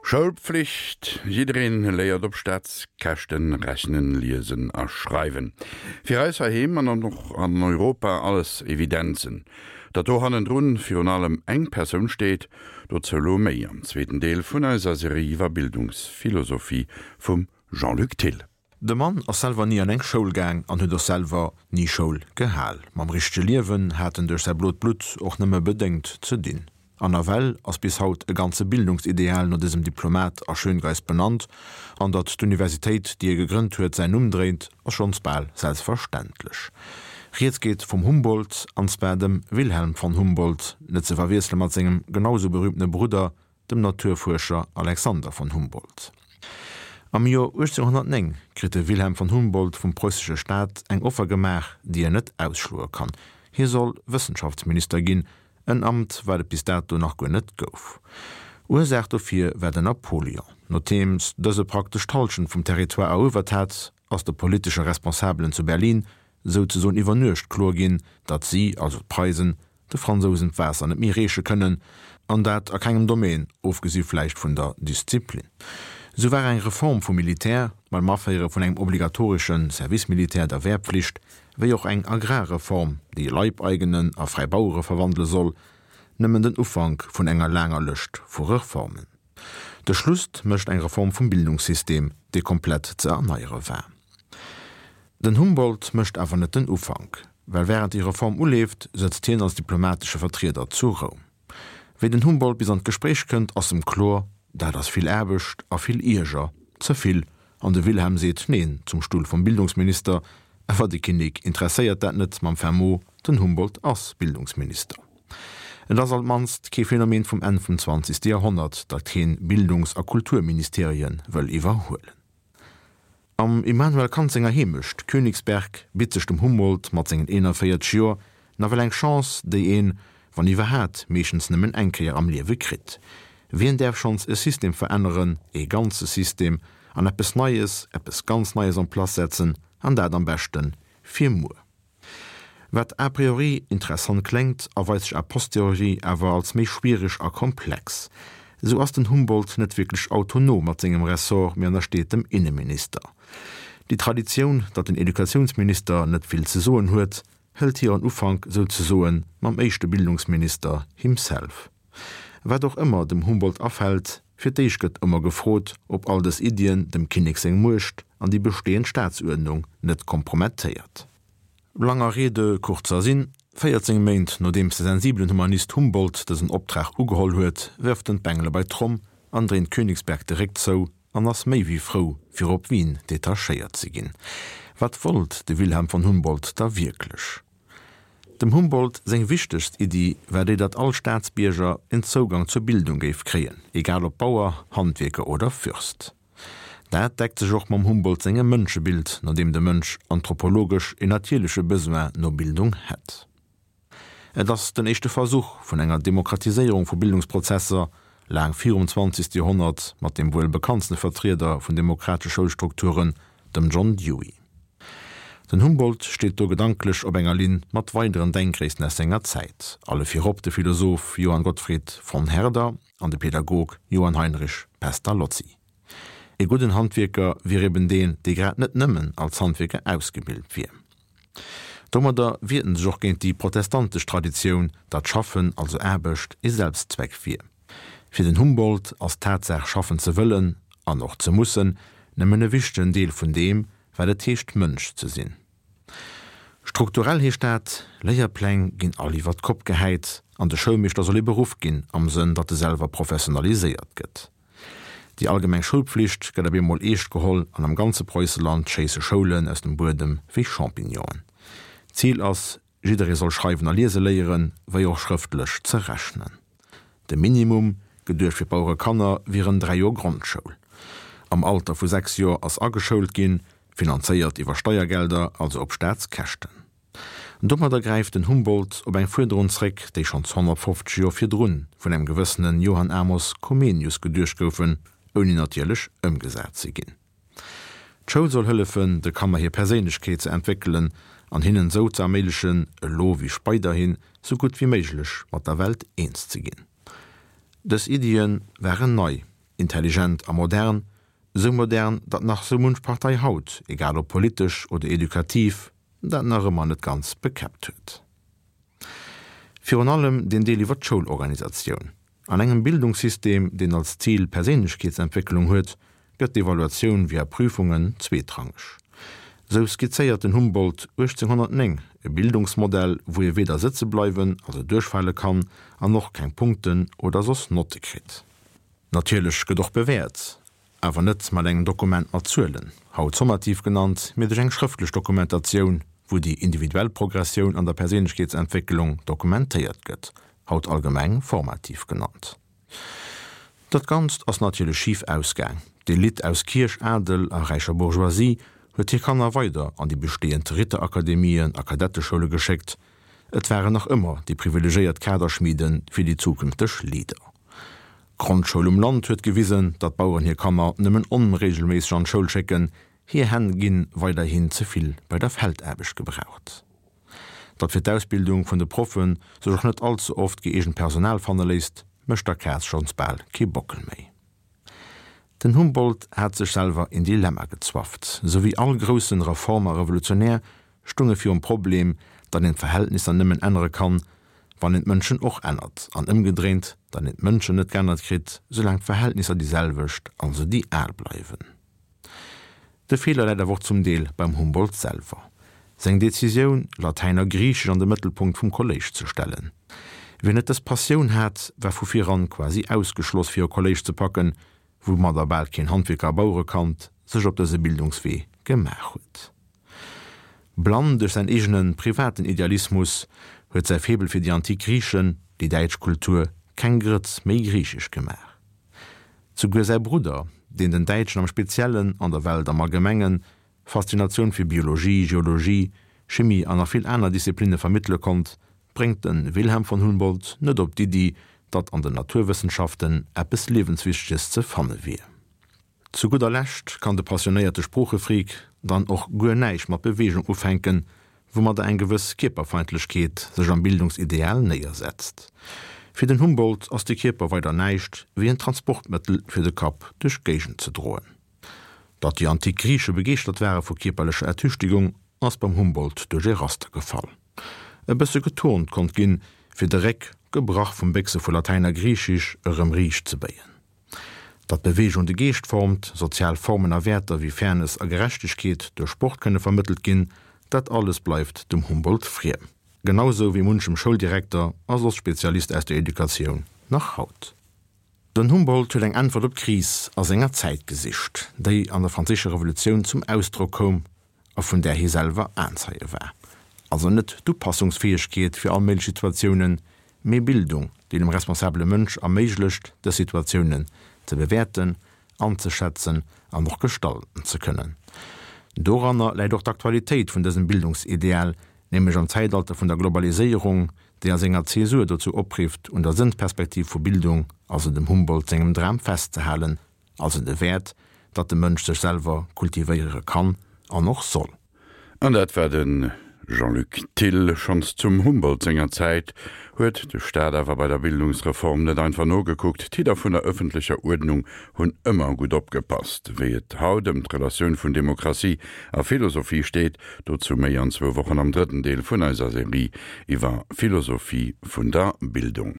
Schoulpflicht, Jiddereen léiert op Staatskäschten rechnen, liesen a schreiwen. Fir eis heiheem an och an Europa alles Evidenzen. Datt do hannendrun virun allem eng Persoun steet, dozou lo méi am zweeten Deel vun eiser Serie iwwer Bildungsphilosophie vum Jean-Luc Thill. De Mann ass selwer ni an eng Schoul gaang an huet och selwer ni Schoul gehal. Mam richtege Liewen hat en duerch säi blot Blutt och nëmme bedéngt ze dinn. An nawell ass bis haut e ganze Bildungsideal no dësem Diplomat a Schöngeist benannt, an datt d'Universitéit, déi e gegrënnt huet, säin Numm dréit, ass schonns bal selbstverständlech. Rieds geet vum Humboldt, an zwar dem Wilhelm von Humboldt, net ze verwiessele mat sengem genau sou berühmtene Brudder, dem Naturfuerscher Alexander von Humboldt. Am Joer 1809 kritt de Wilhelm von Humboldt vum preussesche Staat eng Offer gemaach, déi en net ausschloe kann, Hie soll Wëssenschaftsminister ginn, en Amt, wat et bis dato nach guer net gouf. Ursaach dofir war den Napoleon. Nodeems dëse praktesch d'Hallschent vum Territoire eruewert hat, ass de politesche Responsabelen zu Berlin souzesoen iwwer Nuecht kloer ginn, datt si, also d'Preisen, de Fransousen d'Waasser net méi reeche kënnen, an dat a kengem Domaine, ofgesi vläicht vun der Disziplin. Esou war eng Reform vum Militär, mam Aféiere vun engem obligatoresche Service militaire, der Wehrpflicht, wéi och eng Agrarreform, déi Leibeigenen a fräi Bauere verwandele soll, nëmmen den Ufank vun enger laanger Lëscht vu Reformen. De Schluss mécht eng Reform vum Bildungssystem, dee komplett ze erneiere war. Den Humboldt mécht awer net den Ufank, well wärend déi Reform uleeft, sëtzt hien als diplomatesche Vertrieder zu Roum. Wéi den Humboldt bis an d'Gespréich kënnt, ass em kloer, dat ass vill Aarbecht a vill Ierger, ze vill, an de Wilhelm seet Neen zum Stull vum Bildungsminister, awer de Kinnek interesséiert dat net mam fin mot, den Humboldt ass Bildungsminister. Et ass alt mannst kee Phänomen vum Enn vum zwanzegste Joerhonnert, datt keen Bildungs a Kulturministerie wëll iwwerhuelen. Am Immanuel Kant senger Heemecht Königsberg bitt sech dem Humboldt mat sengen 41 Joer nawell eng Chance, déi een, wann iwwerhaat, meeschtens nëmmen eng Kéier am Liewe kritt. Wien däerf schonns e System veränneren, ee ganze System, an eppes Neies, eppes ganz Neies en place setzen, an dat am beschte fir muer? Wat a priori interessant kléngt, erweist sech a posteriori awer als méi schwiereg a komplex. Esou ass den Humboldt net wierklech autonom mat sengem Ressort, mee ënnersteet dem Inneminister. Déi Traditioun, datt den Educatiounsminister net vill ze soen huet, hëlt hiren Ufank souzesoen mam éischte Bildungsminister himself. Wat och ëmmer dem Humboldt afält, fir d'éischt gëtt ëmmer gefrot, ob all dës Iddien dem Kinnek seng Muecht an déi bestehend Staatsuerdnung net kompromettéiert. Langer Rede, kurzer Sinn, 14 Méint nodeems de sensibelen Humanist Humboldt dësen Optrag ugeholl huet, wërft en d'Bengele bei d'Tromm an dréint Königsberg de Réck zou an ass méi wéi frou, fir op Wien detachéiert ze ginn. Wat wollt de Wilhelm von Humboldt da wierklech? Dem Humboldt seng wichtegst Iddi war déi, datt all Staatsbierger en Zougang zur Bildung géif kréien, egal ob Bauer, Handwierker oder Fürst. Dat deckt sech och mam Humboldt sengem Mënschebild, no deem de Mënsch anthropologesch en natierleche Besoin no Bildung hätt. Et ass den éischte Versuch vun enger Demokratiséierung vu Bildungsprozesser, laang virum zwanzegste Joerhonnert, mat deem wuel bekanntste Vertrieder vun demokratesche Schoulstrukturen, dem John Dewey. Den Humboldt steet do gedanklech op enger Linn mat weideren Denkgréissten aus senger Zäit, alle virop de Philosoph Johann Gottfried von Herder, an de Pädagog Johann Heinrich Pestalozzi. E gudden Handwierker wier eben deen, dee grad net nëmmen als Handwierker ausgebilt wier. Domadder wiert en sech och géint déi protestantesch Traditioun, datt Schaffen, also Aarbecht, e Selbstzweck wier. Fir den Humboldt ass d'Tatsaach schaffen ze wëllen an och ze mussen nëmmen e wichtegen Deel vun deem, wat et heescht Mënsch ze sinn. Strukturell heescht dat, Léierpläng ginn all iwwer d'Kopp gehäit an de Schoulmeeschter soll ee Beruff ginn, am Sënn, datt e selwer professionaliséiert gëtt. Déi allgemeng Schoulpflicht gëtt op eemol eescht geholl an am ganze Preusseland schéisse Schoulen aus dem Buedem wéi Champignonen. D'Zil ass, Jidderee soll schreiwen a liese léieren, wéi och schrëftlech ze rechnen. De Minimum, geduecht fir d'Bauerekanner, wieren 3 Joer Grondschoul. Am Alter vu 6 Joer ass ageschoult ginn, finanzéiert iwwer Steiergelder, also op Staatskäschten. Domadder gräift den Humboldt op eng Fuerderung zréck, déi schonns 150 Joer virdrun vun engem gewëssene Johann Amos Comenius geduecht goufen, ouni natierlech ëmgesat ze ginn. D'Schoul soll hëllefen, de Kanner hir Perséinlechkeet ze entwéckelen an hinnen esou ze erméiglechen, elo wéi speiderhin, sou gutt wéi méiglech mat der Welt eens ze ginn. Dës Iddie waren nei. intelligent a modern, sou modern, datt nach sou munch Partei haut, egal ob politesch oder edukativ, dat nach ëmmer net ganz bekäppt huet. Virun allem deen Deel iwwer d'Schoulorganisatioun. An engem Bildungssystem, deen als Zil Perséinlechkeetsentwécklung huet, gëtt d'Evaluatioun via Prüfungen zweetrangeg. Sou skizzéiert den Humboldt 1809 e Bildungsmodell, wou ee weder sëtze bleiwen, also duerchfale kann, an och keng Punkten oder soss Notte kritt. Natierlech gëtt och bewäert, awer net mat engem Dokument mat Zuelen, haut sommativ genannt, mee duerch eng schrëftlech Dokumentatioun, wou déi individuell Progressioun an der Perséinlechkeetsentwécklung dokumentéiert gëtt, haut allgemeng formativ genannt. Dat Ganzt ass natierlech schif ausgaang. D'Elite aus Kierch, Adel a räicher Bourgeoisie huet hir Kanner weider an déi bestehend Ritterakademien a Kadetteschoule geschéckt. Et waren nach ëmmer déi privilegéiert Kaderschmiede fir déi zukünfteg Leader. D'Grondschoul um Land huet gewisen, datt d'Baueren hir Kanner nëmmen onregelméisseg an d'Schoul schécken, hir Hänn gi weiderhin ze vill bei der Feldaarbecht gebraucht. Datt fir d'Ausbildung vun de Proffe sech och net all ze oft gëeegent Personal fanne léisst, mécht der Kaz schonns bal kee Bockel méi. Den Humboldt hat sech selwer een Dilemma gezwafft. Sou wéi all groussen Reformer a Revolutionär stung e virum Problem, datt een d'Verhältnisser nëmmen ännere kann, wann een d'Mënschen och ännert, an ëmgedréint, datt een d'Mënschen net geännert kritt, soulaang d'Verhältnisser déi selwecht, also déi al bleiwen. De Feeler läit awer och zum Deel beim Humboldt selwer. Seng Decisioun, Latäin a Griichesch an de Mëttelpunkt vum Kolléisch ze stellen. Wien net dës Passioun hat, war vu viran quasi ausgeschloss fir e Kolléisch ze packen, woumadder bal keen Handwierker a Bauerekand sech op dëse Bildungswee gemaach huet. Blann duerch säin eegene privaten Idealismus huet säi Faible fir déi antik Griichen déi däitsch Kultur keng Grëtz méi griichesch gemaach. Souguer säi Brudder, deen den Däitschen am Speziellen an der Welt am Allgemengen Faszinatioun fir Biologie, Geologie, Chimie an nach vill aner Disziplinne vermëttele konnt, bréngt de Wilhelm von Humboldt net op d'Iddi, datt an den Naturwëssenschaften eppes Liewenswichteges ze fanne wier. Zu gudder Lescht kann de passionéierte Sproochefreak dann och guer näischt mat Beweegung ufänken, woumadder eng gewëss Kierperfeindlechkeet sech am Bildungsideal néiersetzt. Fir den Humboldt ass de Kierper weider näischt wéi en Transportmëttel fir de Kapp duerch d'Géigend ze droen. Datt déi antik Griiche begeeschtert ware vu kierperlecher Ertüchtegung, ass beim Humboldt duerch ee Raster gefall. E bësse geturnt konnt ginn, fir de Réck, gebrach vum Béchse vu Latäin a Griichisch, erëm riicht ze béien. Datt Beweegung de Geescht formt, sozial Formen a Wäerter wéi Fairness a Gerechtegkeet duerch Sport kënne vermëttelt ginn, dat alles bleift dem Humboldt friem. Genau sou wéi munchem Schouldirekter a soss Spezialist aus der Educatioun nach haut. Den Humboldt huet eng Äntwert op d'Kris a senger Zäit gesicht, déi an der Franséischer Revolutioun zum Ausdrock koum a vun där hie selwer Aenzeie war. Also net d'Upassungsfäegkeet fir all méiglech Situatiounen, mee Bildung, déi dem responsabele Mënsch erméiglecht, dës Situatiounen ze bewäerten, anzeschätzen an och gestalten ze kënnen. Doranner läit och d'Aktualitéit vun dësem Bildungsideal, nämlech am Zäitalter vun der Globaliséierung, déi a senger Zäsur dozou oprifft, un der Sënnsperspektiv vu Bildung, also dem Humboldt sengem Dram, festzehalen, also de Wäert, datt de Mënsch sech selwer kultivéiere kann an och soll. An dat war de Jean-Luc Thill. Schonns zum Humboldt senger Zäit huet de Staat awer bei der Bildungsreform net einfach nogekuckt. D'Hidder vun der ëffentlecher Uerdnung hunn ëmmer gutt opgepasst. Wéi et haut ëm d'Relatioun vun Demokratie a Philosophie steet, Dozou méi an zwou Wochen am drëtten Deel vun eiser Serie iwwer Philosophie vun der Bildung.